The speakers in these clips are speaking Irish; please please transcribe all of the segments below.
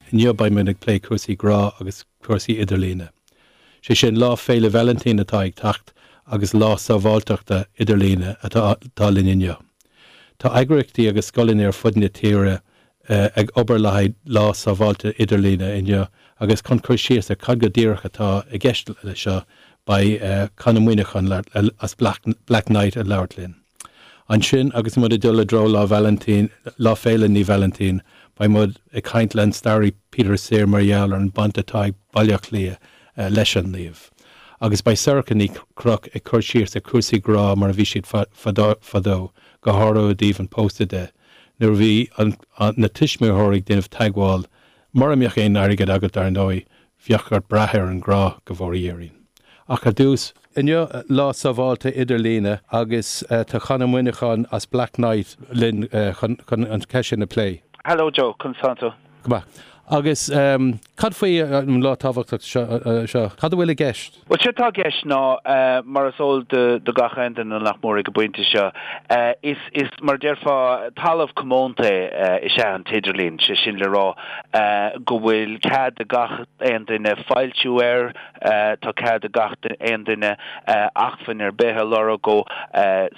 Inniu beidh muid ag plé cúrsaí grá agus cúrsaí idirlíne. Sé sin, Lá Féile Vailintín atá ag teacht agus Lá Sábháilteachta Idirlíne atá linn inniu. Tá eagraíochtaí agus scoileanna ar fud na tíre ag obair le haghaidh Lá Sábháilte Idirlíne inniu agus chun cur síos ar cad go díreach atá i gceist le seo beidh Con Ó Muíneacháin as Blacknight ag labhairt linn. Ansin agus muid ag dul i dtreo Lá Vailintín, Lá Féile Naomh Vailintín, beidh muid ag caint le an staraí Peter Sirr mar gheall ar an baint atá ag Baile Átha Cliath leis an naomh. Agus beidh Sorcha Ní Chnoic ag cur síos ar chúrsaí grá mar a bhí siad fadó, go háirithe i dtaobh an pósta de, nuair a bhí na tuismitheoirí ag déanamh teagmháil, mura mbeadh aon airgead agat dar ndóigh, bheadh ort brath ar an ngrá, go bhfóire Dia orainn. Ach ar dtús, inniu Lá Sábháilte Idirlíne agus tá Con Ó Muíneacháin as Blacknight linn chun an cheist sin a phlé. Hello Joe, conas tánn tú? Go maith. Agus cad faoi an lá tábhachtach seo? Cad a bhfuil i gceist? Bhuel, séard atá i gceist ná, mar is eol do gach aon duine nach mór ag an bpointe seo, is, is mar a déarfá, talamh comónta is ea an t-idirlíon, sé sin le rá go bhfuil cead ag gach aon duine foilsiú air, tá cead ag gach aon duine acmhainn ar bith a lorg ó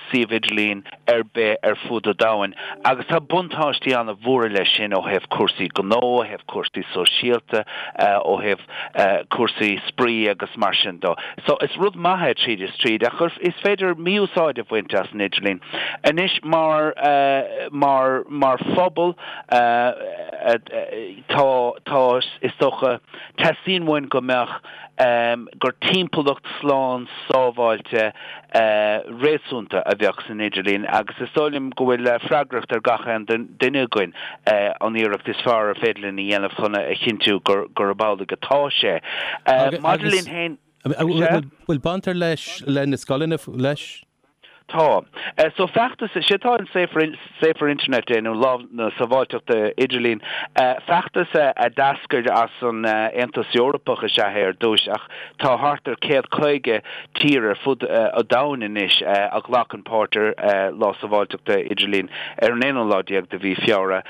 suíomh idirlín ar bith ar fud an domhain agus tá buntáistí an-mhóra leis sin ó thaobh cúrsaí gnó, ó thaobh cúrsaí sóisialta, ó thaobh cúrsaí spraoi agus mar sin de. So is rud maith é tríd is tríd ach is féidir mí-úsáid a bhaint as an idirlíon. Anois mar, mar, mar phobal tá, tá, is dócha, teastaíonn uainn go mbeadh, gur timpeallacht slán sábháilte réasúnta a bheadh san idirlíon agus is dóigh liom go bhfuil freagracht ar gach aon duine againn an iarracht is fearr ar féidir linn a dhéanamh chun a chinntiú gurb amhlaidh atá sé. Maidir linn féin. Bhfuil baint ar leis le na scoileanna leis? Tá. So feachtas, sé atá in Safer Safer Internet Day nó Lá na Sábháilteachta Idirlín, feachtas a d'eascair as an Aontas Eorpach is ea é ar dtús ach tá thart ar 150 tír ar fud an domhain anois a ghlacann páirt ar Lá Sábháilteachta Idirlín ar an aonú lá déag de mhí Feabhra.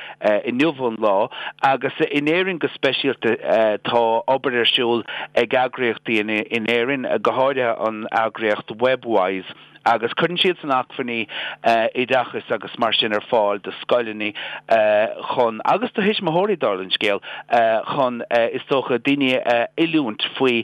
Inniu an lá agus in Éirinn go speisialta tá obair ar siúl ag eagraíochtaí in Éirinn, go háirithe an eagraíocht Webwise, agus cuireann siadsan acmhainní oideachais agus mar sin ar fáil do scoileanna chun, agus do thuismitheoirí dála an scéil, chun is dócha daoine a oiliúint faoi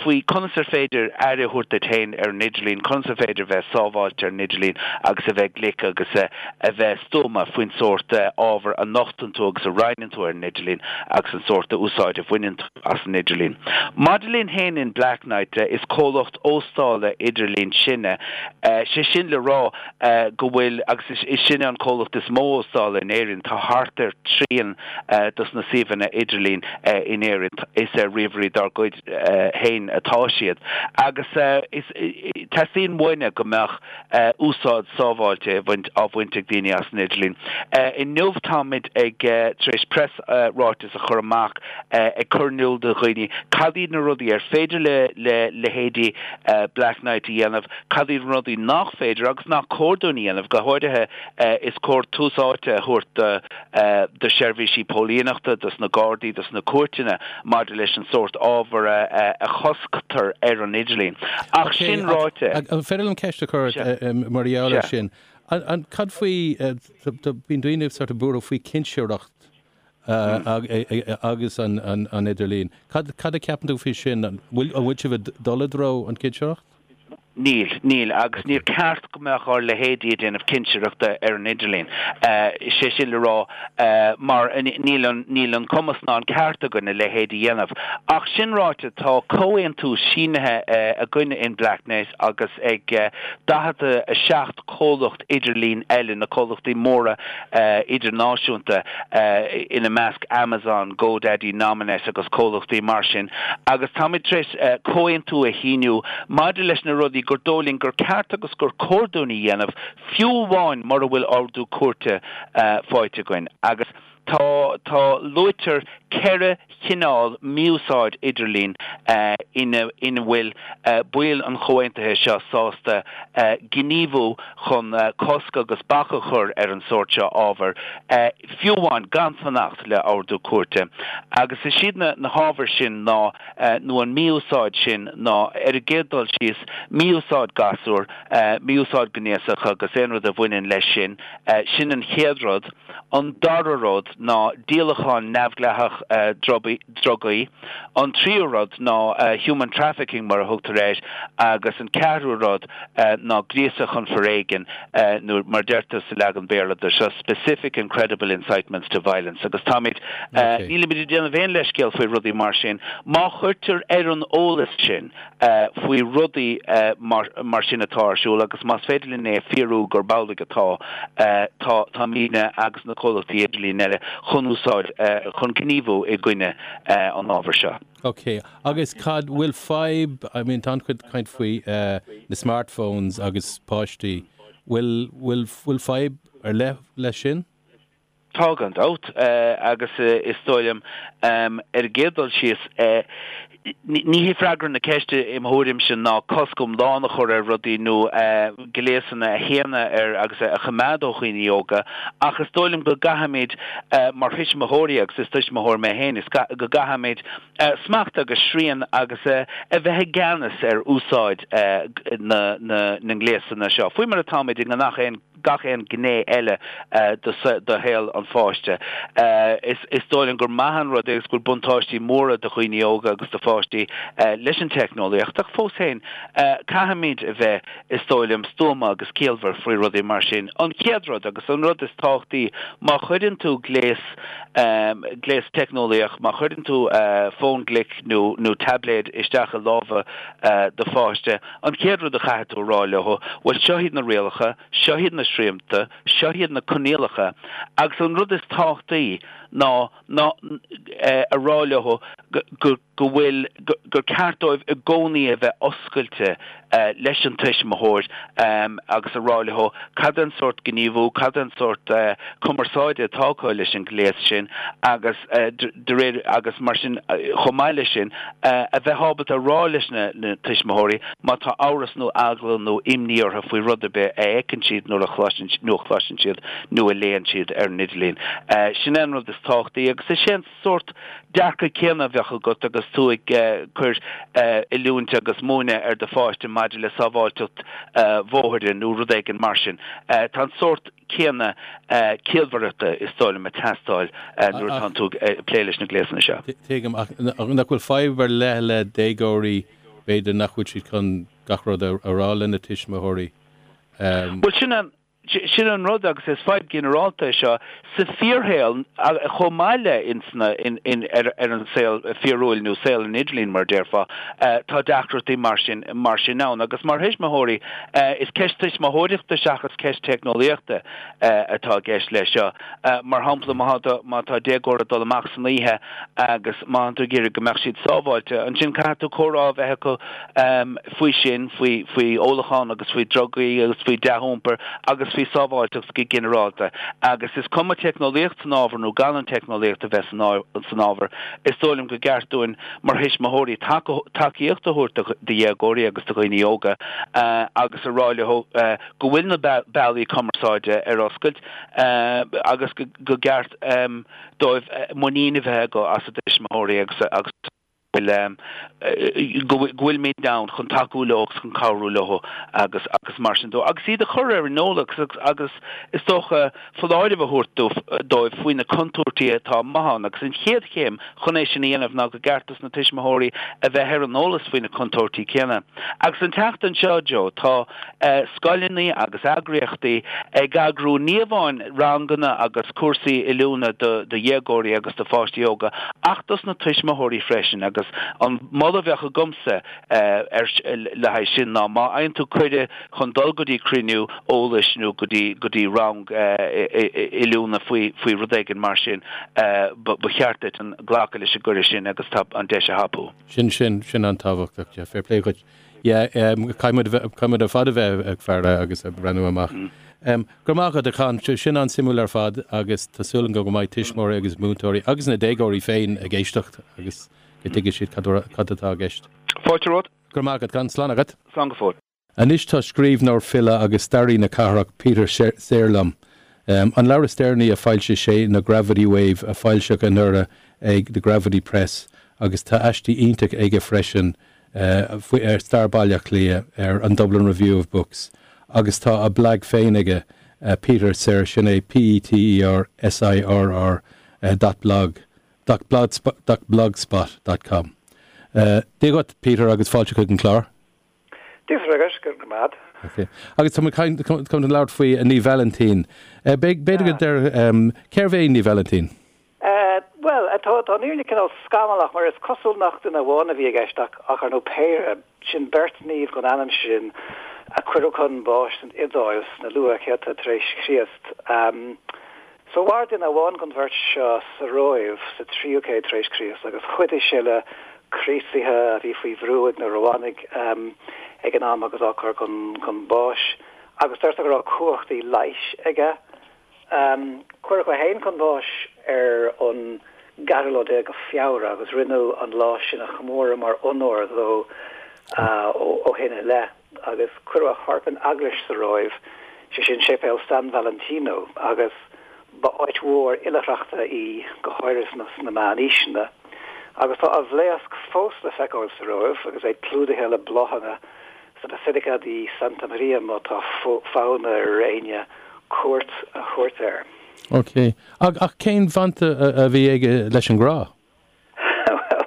faoi conas ar féidir aire a thabhairt duit féin ar an idirlíon, conas ar féidir bheith sábháilte ar an idirlíon agus a bheith glic agus a bheith stuama faoin sórt ábhar a nochtann tú agus a roinneann tú ar an idirlíon agus an sórt úsáid a bhaineann tú as an idirlíon. Maidir linn féin in Blacknight, is comhlacht óstála idirlín sinne, sé sin le rá go bhfuil, agus is sinne an comhlacht is mó óstála in Éirinn, tá thart ar trian dos na suíomhanna idirlín in Éirinn, is ar ríomhairí dár gcuid féin atá siad. Agus is, teastaíonn uainne go mbeadh úsáid sábháilte á bhaint ag daoine as an idirlíon. Inniu táimid ag, tar éis preasráiteas a chur amach ag cur in iúl do dhaoine cad iad na rudaí ar féidir le leithéidí Blacknight a dhéanamh, cad iad na rudaí nach féidir agus nach cóir dúinn a dhéanamh. Go háirithe, is cóir tús áite a thabhairt do sheirbhísí póilíneachta, dos na Gardaí, dos na cúirteanna maidir leis an sórt ábhar a chosctar ar an idirlíon. Ach sin ráite. An féidir liom ceist a chur ort mar gheall air sin? Cad faoi, bíonn daoine sort of buartha faoi cinsireacht agus an idirlíon. Cad a cheapann tú faoi sin? An bhfuil sibh ag dul i dtreo an cinsireacht? Níl, níl, agus níor ceart go mbeadh ár leithéidí ag déanamh cinsireachta ar an idirlíon. Sé sin le rá, mar níl an, níl an cumas ná an ceart againn a leithéid a dhéanamh. Ach sin ráite, tá comhaontú sínithe againne in Blacknight agus ag 47 comhlacht idirlín eile, na comhlachtaí móra idirnáisiúnta, ina measc Amazon, GoDaddy, Nominet agus comhlachtaí mar sin, agus táimid tar éis comhaontú a shíniú maidir leis na rudaí gur dóigh linn gur ceart agus gur cóir dúinn a dhéanamh, fiú amháin mura bhfuil ordú cúirte faighte againn. Agus. Tá, tá, luaitear 4 chineál mí-úsáid idirlín ina ina bhfuil baill an chomhaontaithe seo sásta gníomhú chun cosc agus bac a chur ar an sórt seo ábhair, fiú amháin gan fanacht le ordú cúirte. Agus is iad na na hábhair sin ná, nó an mí-úsáid sin ná, ar an gcéad dul síos, mí-úsáid gasúr, mí-úsáid gnéasach agus aon rud a bhaineann leis sin, sin an chéad rud. An dara rud ná díolachán neamhdhleathach drugaí. An tríú rud ná human trafficking mar a thugtar air agus an ceathrú rud ná gríosadh chun foréigin nó mar deirtear sa leagan Béarla de seo specific and credible incitements to violence agus táimid, nílimid ag déanamh aon leithscéal faoi rudaí mar sin. Má chuirtear ar an eolas sinn faoi rudaí mar sin atá ar siúl agus más féidir linn é a fíorú gurb amhlaidh atá, tá, táimidne agus na comhlachtaí idirlín eile chun úsáid, chun gníomhú i gcoinne an ábhair seo. Ok, agus cad, bhfuil fadhb, I mean tá an-chuid caint faoi na smartphones agus páistí, bhfuil, bhfuil, bhfuil fadhb ar leith leis sin? Tá gan dabht, agus is dóigh liom, ar an gcéad dul síos, ní hé freagra na ceiste i mo thuairimse ná cosc iomlán a chur ar rudaí nó gléasanna a shéanadh ar agus a choimeád ó dhaoine óga, ach is dóigh liom go gcaithfimid mar thuismitheoirí, agus is tuismitheoir mé féin, is go gcaithfimid smacht agus srian agus a bheith i gceannas ar úsáid na ngléasanna seo, faoi mar atáimid i ngach aon gach aon ghné eile de shaol an pháiste. Is dóigh liom gur maith an rud é agus go bhfuil buntáistí móra do dhaoine óga agus do pháistí leis an teicneolaíocht ach fós féin caithfimid a bheith, is dóigh liom, stuama agus ciallmhar faoi rudaí mar sin. An chéad rud agus an rud is tábhachtaí, má chuireann tú gléas, gléas teicneolaíoch, má chuireann tú fón glic nó nó taibléad isteach i lámha do pháiste, An chéad rud a chaithfidh tú a rá leo, bhuel seo iad na rialacha, seo iad na srianta, seo iad na coinníollacha agus an rud is tábhachtaí ná ná a rá leo go go go bhfuil gur ceart dóibh i gcónaí a bheith oscailte leis an tuismitheoir agus a rá leo cad é an sórt gníomhú, cad é an sórt cumarsáide atá acu leis an ghléas sin agus de réir agus mar sin chomh maith leis sin a bheith ábalta a rá leis na tuismitheoirí má tá amhras nó eagla nó imní orthu faoi rud ar bith a fheiceann siad nuair a chloiseann nó a chloiseann siad nó a léann siad ar an idirlíon. Sin é an rud is tábhachtaí agus is é an sórt dearcadh céanna a bheadh agat agus tú ag cur oiliúint agus múineadh ar do pháiste maidir le sábháilteacht bhóthair nó rud éigin mar sin. Tá an sórt céanna ciallmhaireachta is dóigh liom ag teastáil nuair atánn tú ag plé leis na gléasanna seo. Tuigim, ach nach bhfuil fadhb ar leith le déagóirí, b'fhéidir nach bhfuil siad chun gach rud a rá lena tuismitheoirí? Bhuel, sin an, sin an rud agus is fadhb ghinearálta é seo sa fíorshaol chomh maith le ins na, in, in, ar, ar an saol fíorúil nó saol an idirlín mar a déarfá, tá deacrachtaí mar sin, mar sin ann agus mar thuismitheoirí, Is ceist tuismitheoireachta seachas ceist teicneolaíochta atá i gceist leis seo. Mar shampla, má tá déagóir ag dul amach san oíche agus má tá tú ag iarraidh go mbeadh siad sábháilte, ansin caithfidh tú comhrá a bheith acu faoi sin, faoi faoi ólachán agus faoi drugaí agus faoi dea-iompar agus faoi sábháilteacht go ginearálta. Agus is cuma teicneolaíocht san ábhar nó gan an teicneolaíocht a bheith san ábhar, is dóigh liom go gceart dúinn mar thuismitheoirí tacaíocht a thabhairt do dhéagóirí agus do dhaoine óga agus a rá leo go bhfuil na bealaí cumarsáide ar oscailt agus go gceart dóibh muinín a bheith acu as a dtuismitheoirí agus go bhfuilimid ann chun tacú leo agus chun cabhrú leo agus agus mar sin de agus iad a chur ar an eolas agus is dócha foláireamh a thabhairt dóibh faoi na contúirtí atá amuigh ann agus an chéad chéim chun é sin a dhéanamh ná go gceart dos na tuismitheoirí a bheith ar an eolas faoi na contúirtí céanna. Agus an tseachtain seo, Joe, tá scoileanna agus eagraíochtaí ag eagrú ní amháin ranganna agus cúrsaí oiliúna do dhéagóirí agus do pháistí óga ach dos na tuismitheoirí freisin agus an moladh a bheadh agamsa le haghaidh sin ná má fhaigheann tú cuireadh chun dul go dtí cruinniú eolais nó go dtí go dtí rang oiliúna faoi faoi rud éigin mar sin, ba cheart duit an glacadh leis an gcuireadh sin agus tá an deis a thapú. Sin, sin, sin an-tábhachtach, yeah, fair play dhuit. Yeah, caithfidh muid, caithfidh muid ar fad a bheith ag faire agus ag breathnú amach. Go raibh maith agat a Con, sin an-suimiúil ar fad agus tá súil agam go mbeidh tuismitheoirí agus múinteoirí agus na déagóirí féin ag éisteacht agus go dtuigfidh siad cad atá i gceist. Fáilte romhat. Go raibh maith agat, Con. Slán agat. Slán go fóill. Anois tá scríbhneoir, file agus staraí na cathrach Peter Sirr liom. An leabhar is deireanaí a foilsigh sé ná Gravity Wave a foilsíodh anuraidh ag The Gravity Press agus tá aistí iontach aige freisin ar stair Bhaile Átha Cliath ar an Dublin Review of Books agus tá a blag féin aige, Peter Sirr, sin é P-E-T-E-R S-I-R-R dot blog dot blogspot dot com. Dia dhuit, Peter, agus fáilte chuig an chlár. Dia duit, go raibh maith agat. Ok. Agus tá muid chun labhairt faoi Naomh Vailintín. B'fhéidir go deir, cérbh é Naomh Vailintín? Bhuel, tá an fhírinne cineál scamallach mar is cosúil nach duine amháin a bhí i gceist ach ar ndóigh péire, sin beirt naomh den ainm sin a cuireadh chun báis san Iodáil sna luathchéadta tar éis Chríost. So mhair duine amháin den bheirt seo sa Róimh sa tríú céad tar éis Críost agus chuidigh sé le Críostaithe a bhí faoi bhrú ag na Rómhánaigh ag an am agus á gcur chun báis agus deirtear go raibh cumhachtaí leighis aige. Cuireadh é féin chun báis ar an gceathrú lá déag de Feabhra agus rinneadh an lá sin a chomóradh mar onóir dó ó shin i leith. agus cuireadh a chorp in eaglais sa Róimh, sé sin Séipéal San Valentino, agus ba áit mhór oilithreachta í, go háirithe sna Meánaoiseanna. Agus tá a bhlaosc fós le feiceáil sa Róimh, agus é clúdaithe le bláthanna sa Basilica di Santa Maria má tá fonn ar éinne cuairt a thabhairt air. Ok. Ach cén bhaint a bhí aige leis an ngrá? Bhuel,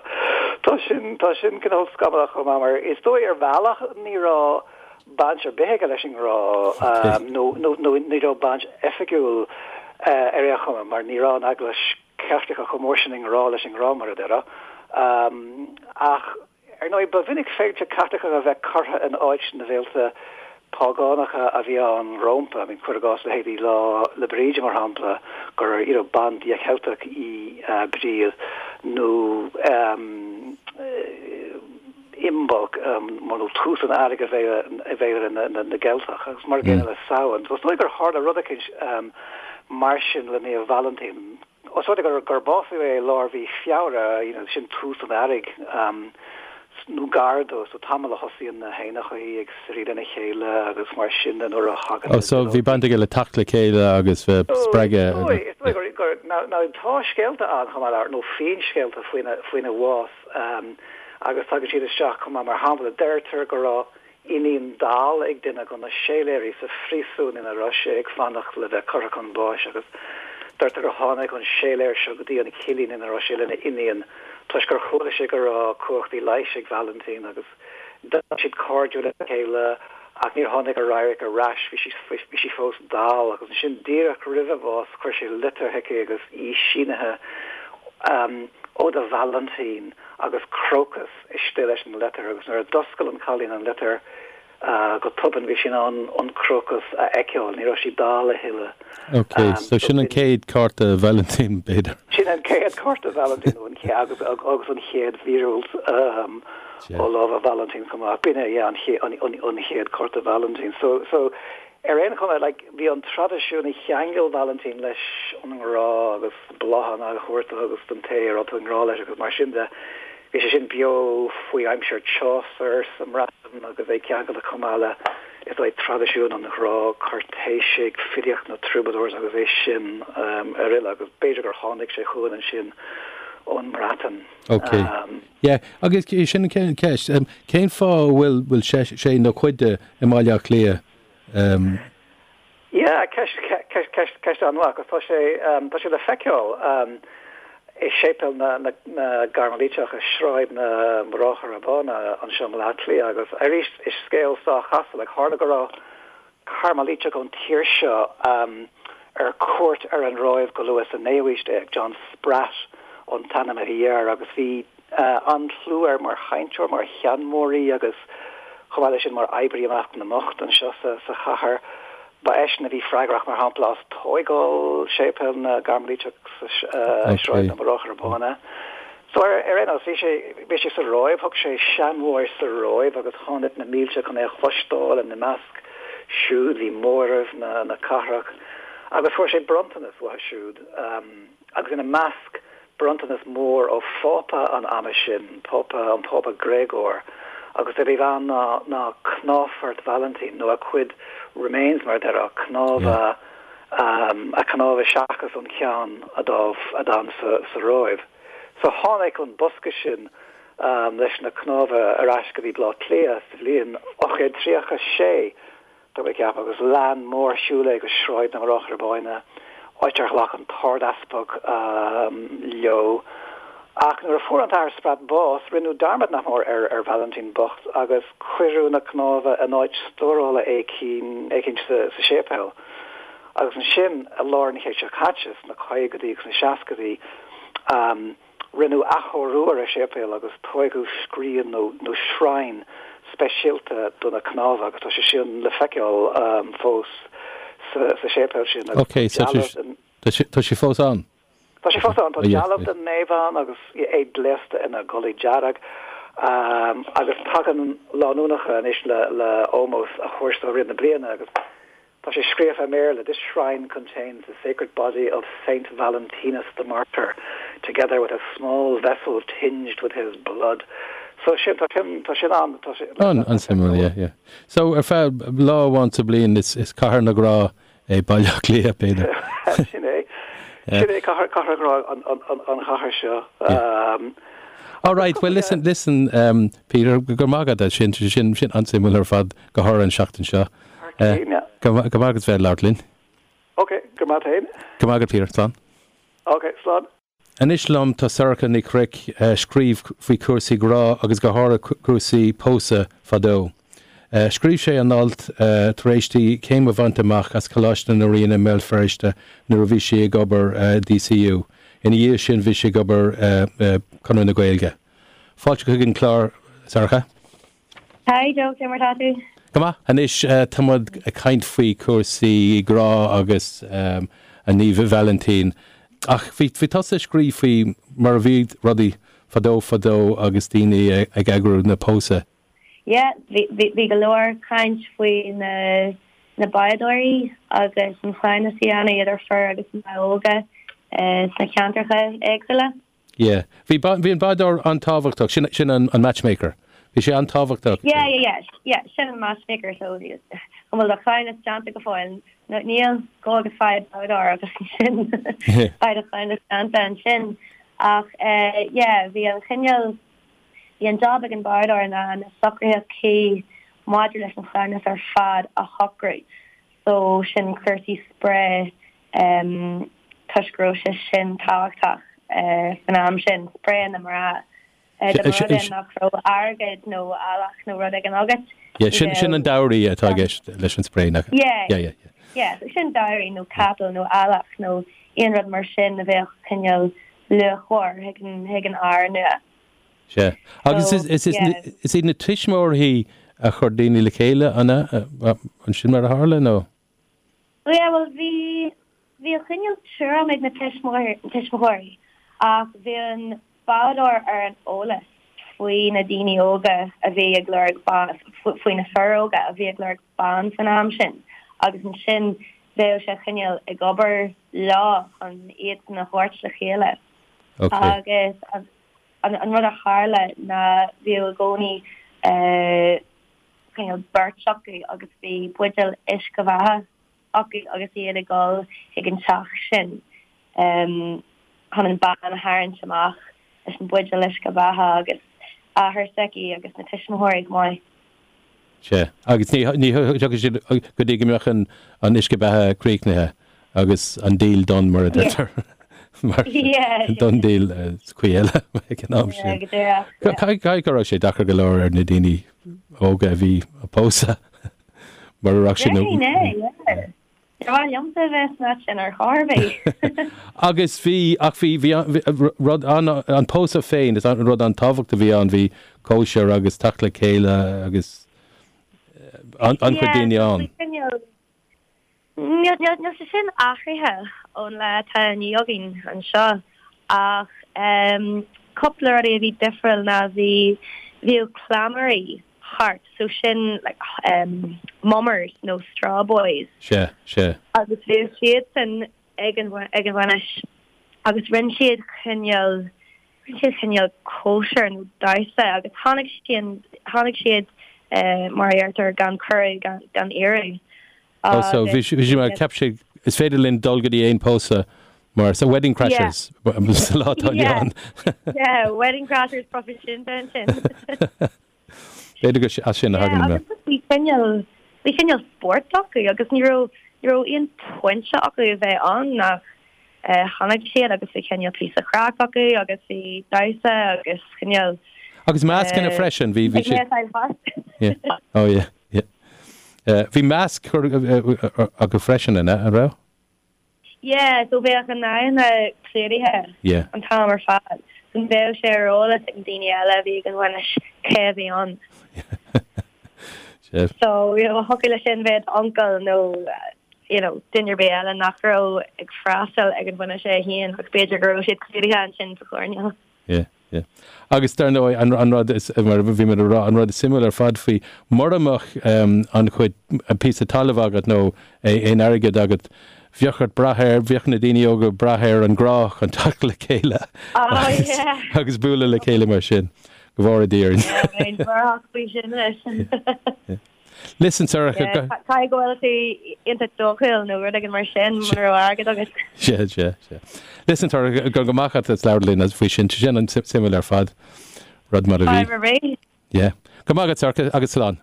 tá sin, tá sin cineál scamallach chomh maith mar is dóigh ar bhealach ní raibh baint ar bith aige leis an ngrá nó, nó, nó ní raibh baint oifigiúil ar aon chuma mar ní raibh an Eaglais Chaitliceach chomh mór sin i ngrá leis an ngrá mar a déarfá. Ach Ar ndóigh, ba mhinic féilte Caitliceacha a bheith curtha in áit na bhféilte págánacha a bhí ann rómpa. I mean, cuir i gcás leithéidí Lá 'le Bríde, mar shampla, gur, you know, bandia Cheilteach í Bríd, nó ehm Imbolc, nó tús an earraigh i bhféilire na gCeilteach, agus mar an gcéanna le Samhain. So is dóigh gur tharla rud eicínt mar sin le Naomh Vailintín. Os rud é gur básaíodh é i lár mhí Feabhra, you know, sin tús an earraigh, nó gar dó, so tamall a thosaíonn na héanachaí ag suirí lena chéile agus mar sin de nuair a thagann Oh, so bhí baint aige le teacht le chéile agus bheith spreagtha. Is dóigh, is dóigh gur, gur, now, now tá scéalta ann chomh maith le, nó finscéalta faoina, faoina bhás, agus tagann siad isteach chomh maith, mar shampla, deirtear go raibh iníon dall ag duine de na séiléirí sa phríosún ina raibh sé ag fanacht le bheith curtha chun báis agus deirtear gur tháinig an séiléir seo go dtí an cillín ina raibh sé lena iníon toisc gur chuala sé go raibh cumhachtaí leighis ag Valentin agus d'éirigh siad cairdiúil lena chéile ach níor tháinig a radharc ar ais, bhí sí bhí sí fós dall agus ansin díreach roimh a bhás chuir sé litir chuici agus í sínithe ó do Vailintín agus crocus istigh leis an litir agus nuair a d'oscail an cailín an litir go tobann bhí sí in ann an crocus a fheiceáil, ní raibh sí dall a thuilleadh. Ok, so sin an chéad cárta Vailintín, b'fhéidir. Sin an chéad cárta Vailintín nó an chéad agus agus an chéad mhíorúilt ó lámha Vailintín chomh maith. B'in é, yeah, an chéad cárta Vailintín. So, so Ar aon chuma, like, bhí an traidisiún a cheangail Vailintín leis an ngrá agus bláthanna a thabhairt dó agus don té a raibh tú i ngrá leis agus mar sin de, bhí sé sin beo faoi aimsir Chaucer sa mBreatain agus é ceangailte chomh maith le, is dóigh, traidisiún an ghrá cúirtéisigh, filíocht na troubadours agus é sin ar uile agus b'fhéidir gur tháinig sé chugainn ansin ón mBreatain. Ok. Yeah, agus sin an ceist, cén fáth a bhfuil, bhfuil sé nó cuid de i mBaile Átha Cliath? Um. Yeah, ceist, ceist, ceist, ceist an-mhaith agus tá sé, tá sé le feiceáil i Séipéal na, na, na gCairmilíteach i Sráid na mBráithre Bána anseo i mBaile Átha Cliath agus arís is scéal sách casta, like tharla go raibh Cairmilíteach ón tír seo ar cuairt ar an Róimh go luath sa naoú haois déag, John Spratt an t-ainm a bhí air agus bhí an-chlú air mar chainteoir, mar sheanmóirí agus chomh maith leis sin mar oibrí i measc na mbocht anseo sa chathair. Ba eisean a bhí freagrach, mar shampla, as tóigeáil Séipéal na gCairmilíteach sa Sráid na mBráithre Bána. So ar aon nós, bhí sé, bhí sé sa Róimh, thug sé seanmóir sa Róimh agus tháinig na mílte chun é a chloisteáil, ina measc. siúd, bhí móramh na cathrach agus fuair sé bronntanas uathu siúd agus ina measc bronntanas mór ó Phápa an ama sin, Pápa, an Pápa Gréagóir agus a bhí ann ná ná cnámhphort Vailintín nó a chuid remains mar a déarfá, cnámha, a chnámha seachas an ceann a d'fhan sa Róimh. So tháinig an bosca sin leis na cnámha ar ais go dtí Baile Átha Cliath sa bhliain 836, tá mé ag ceapadh, agus lean mórshiúl é go Sráid na mBráithre Bána, áit ar ghlac an tArd-Easpag leo. Ach nuair a fuair an tAthair Spratt bás, rinneadh dearmad nach mór ar Vailintín bocht agus cuireadh na cnámha in áit stórála éicint sa séipéal. Agus ansin, i lár an chéid seo caite, sna caogaidí agus sna seascaidí, Rinneadh athchóiriú ar an séipéal agus tóigeadh scrín nó nó shrine speisialta do na cnámha agus tá sé sin le feiceáil fós sa séipéal sin agus Ok, so dealbh den. Tá sé fós ann? Tá sé fós ann. Tá dealbh den naomh ann agus é gléasta ina gculaith dearg agus tagann lánúnacha anois le le ómós a thabhairt dó i rith na bliana agus Tá sé scríofa i mBéarla, This shrine contains the sacred body of Saint Valentinus the Martyr, together with a small vessel tinged with his blood. So sin, tá sin, tá sin ann, tá sé le An-suimiúil, yeah, yeah. So ar feadh lá amháin sa bhliain is, is cathair na ngrá é Baile Átha Cliath, b'fhéidir. Sin é. Sin é cathair, cathair ghrá an, an, an, an chathair seo. Yeah. All right, well listen, listen, um, Peter, go raibh maith agat as sin, sin, sin an-suimiúil ar fad go háirithe an seachtain seo. Go raibh maith agat as bheith ag labhairt linn. Ok, go raibh maith agat féin. Go raibh maith agat Peter, slán. Ok, slán. Anois liom tá Sorcha Ní Chnoic, a scríobh faoi chúrsaí grá agus go háirithe cúrsaí pósadh fadó. Scríobh sé an alt tar éis di céim a bhaint amach as Coláiste na Ríona i mBéal Feirste nuair a bhí sí ag obair i DCU. Ina dhiaidh sin bhí sí ag obair i Conradh na Gaeilge. Fáilte chuig an chlár, Sorcha. Hi Joe, cé mar tá tú? Go maith. Anois tá muid ag caint faoi chúrsaí grá agus an Naomh Vailintín. Ach bhí bhí tusa ag scríobh faoi mar a bhí rudaí fadó fadó agus daoine ag eagrú na pósadh. Yeah, bhí bhí bhí go leor caint faoi na na báidóirí agus an cleamhnas a dhéanamh idir fir agus mná óga sna ceantracha éagsúla. Yeah. Bhí, bhí an bádóir an-tábhachtach, sin, sin an, an matchmaker. Bhí sé an-tábhachtach. Yeah, yeah, yeah, yeah, sin an matchmaker, so an bhfuil do chleamhnas déanta go fóill? No, níl, gabh agus faigh bádóir agus ansin beidh do chleamhnas déanta ansin. Ach eh, yeah, bhí an chineál, bhí an job ag an bádóir ná na socruithe cuí maidir leis an chleamhnas ar fad a shocrú. So sin cúrsaí spré toisc go raibh sé sin tábhachtach san am sin, spré na mná. Dá mba rud é nach raibh airgead nó eallach nó rud éigin agat, Yeah, sin, sin an dowry atá i gceist leis an spré, nach? Yeah, yeah, yeah. Yeah, so sin dowry nó capall nó eallach nó aon rud mar sin a bheadh cineál luachmhar chuig an, chuig an fhear nua. Sea. Agus is, is, is iad na tuismitheoirí a chuir daoine le chéile, an ea? An sin mar a tharla, nó? Yeah, bhuel, bhí, bhí an cineál tuairim ag na tuismitheoirí ach bhí an bádóir ar an eolas faoi na daoine óga a bhí ag lorg ban, faoi na fir óga a bhí ag lorg ban san am sin agus ansin bheadh sé cineál ag obair leo chun iadsan a thabhairt le chéile. Okay. Agus An rud a tharla ná bhíodh i gcónaí cineál beirt acu agus bhí buidéal uisce beatha acu agus iad ag dul chuig an teach sin chun an bean a tharraingt amach leis an buidéal uisce beatha agus athair s'aici agus na tuismitheoirí chomh maith. Sea. Agus ní ní thiocfadh siad go dtí go mbeadh an an uisce beatha críochnaithe agus an deal done mar a deirtear. Mar done deal is cuí eile ag an am sin. Caithfidh go raibh sé deacair go leor ar na daoine óga a bhí ag pósadh mar a raibh siad Déarfainn é, yeah. Ar mhaith liomsa a bheith san áit sin ar chor ar bith. Agus bhí, ach bhí, bhí rud an, an pósadh féin, is an rud an-tábhachtach a bhí ann, bhí cóisir agus teacht le chéile agus an-chuid daoine ann. Níl, níl, níl sé sin athraithe ón lá atá inniu againn anseo ach cúpla rudaí a bhí difriúil ná bhí, bhíodh cleamairí. thart so sin like um mummers nó straw boys. Sea, sea. Agus bhíodh siadsan ag an ag an bhainis agus rinne siad cineál rinne siad cineál cóisir nó damhsa agus tháinig siad tháinig siad eh mar a deirtear gan cuireadh gan gan iarraidh Oh so bhí bhí sé mar cheap siad is féidir linn dul go dtí aon pósadh mar so wedding crashers sa lá atá inniu ann. Yeah, wedding crashers proifisiúnta ansin. B'fhéidir gur as sin a thagann an. Agus bhí cineál bhí cineál spórt acu agus ní raibh ní raibh aon pointe acu a bheith ann ach tháinig siad agus bhí cineál píosa craic acu agus bhí damhsa agus cineál Agus mascanna freisin, bhí bhí siad. Oh yeah, yeah. Bhí masc acu freisin, an raibh? Yeah, so bheadh a n-aghaidheanna clúdaithe Yeah. an t-am ar fad. So ní bheadh sé ar eolas ag na daoine eile a bhí ag an bhainis cé a bhí ann. Sea. So, you know, thiocfadh leis sin bheith d'uncail nó, you know, duine ar bith eile nach raibh ag freastal ag an bhainis é féin ach b'fhéidir go raibh siad clúdaithe ansin sa choirnéal. Yeah. Yeah. Agus dar ndóigh, an, an rud is, mar a bhí mé ag rá, an rud is suimiúil ar fad faoi, mura mbeadh um, an chuid, an píosa talaimh agat nó aon airgead agat, bheadh ort brath ar, bheadh na daoine óga ag brath ar an ngrá chun teacht le chéile Oh, agus, yeah. agus bualadh le chéile mar sin. Go bhfóire Dia orainn. Yeah, bheinn buartha faoi sin leis. Listen, Sorcha, Yeah, go. caithfidh go bhfuil tú iontach dóchúil nó rud éigin mar sin mura raibh airgead agat. Sea, sea, sea. Listen, Sorcha, go go maith agat as labhairt linn faoi sin. Sin an-suimiúil ar fad. Rud mar a bhí. Fadhb ar bith. Yeah. Go maith agat, Sorcha, agus slán.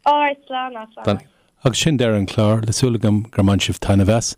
Alright, slán, slán. Agus sin deireadh an chláir, le súil agam gur bhain sibh taitneamh as.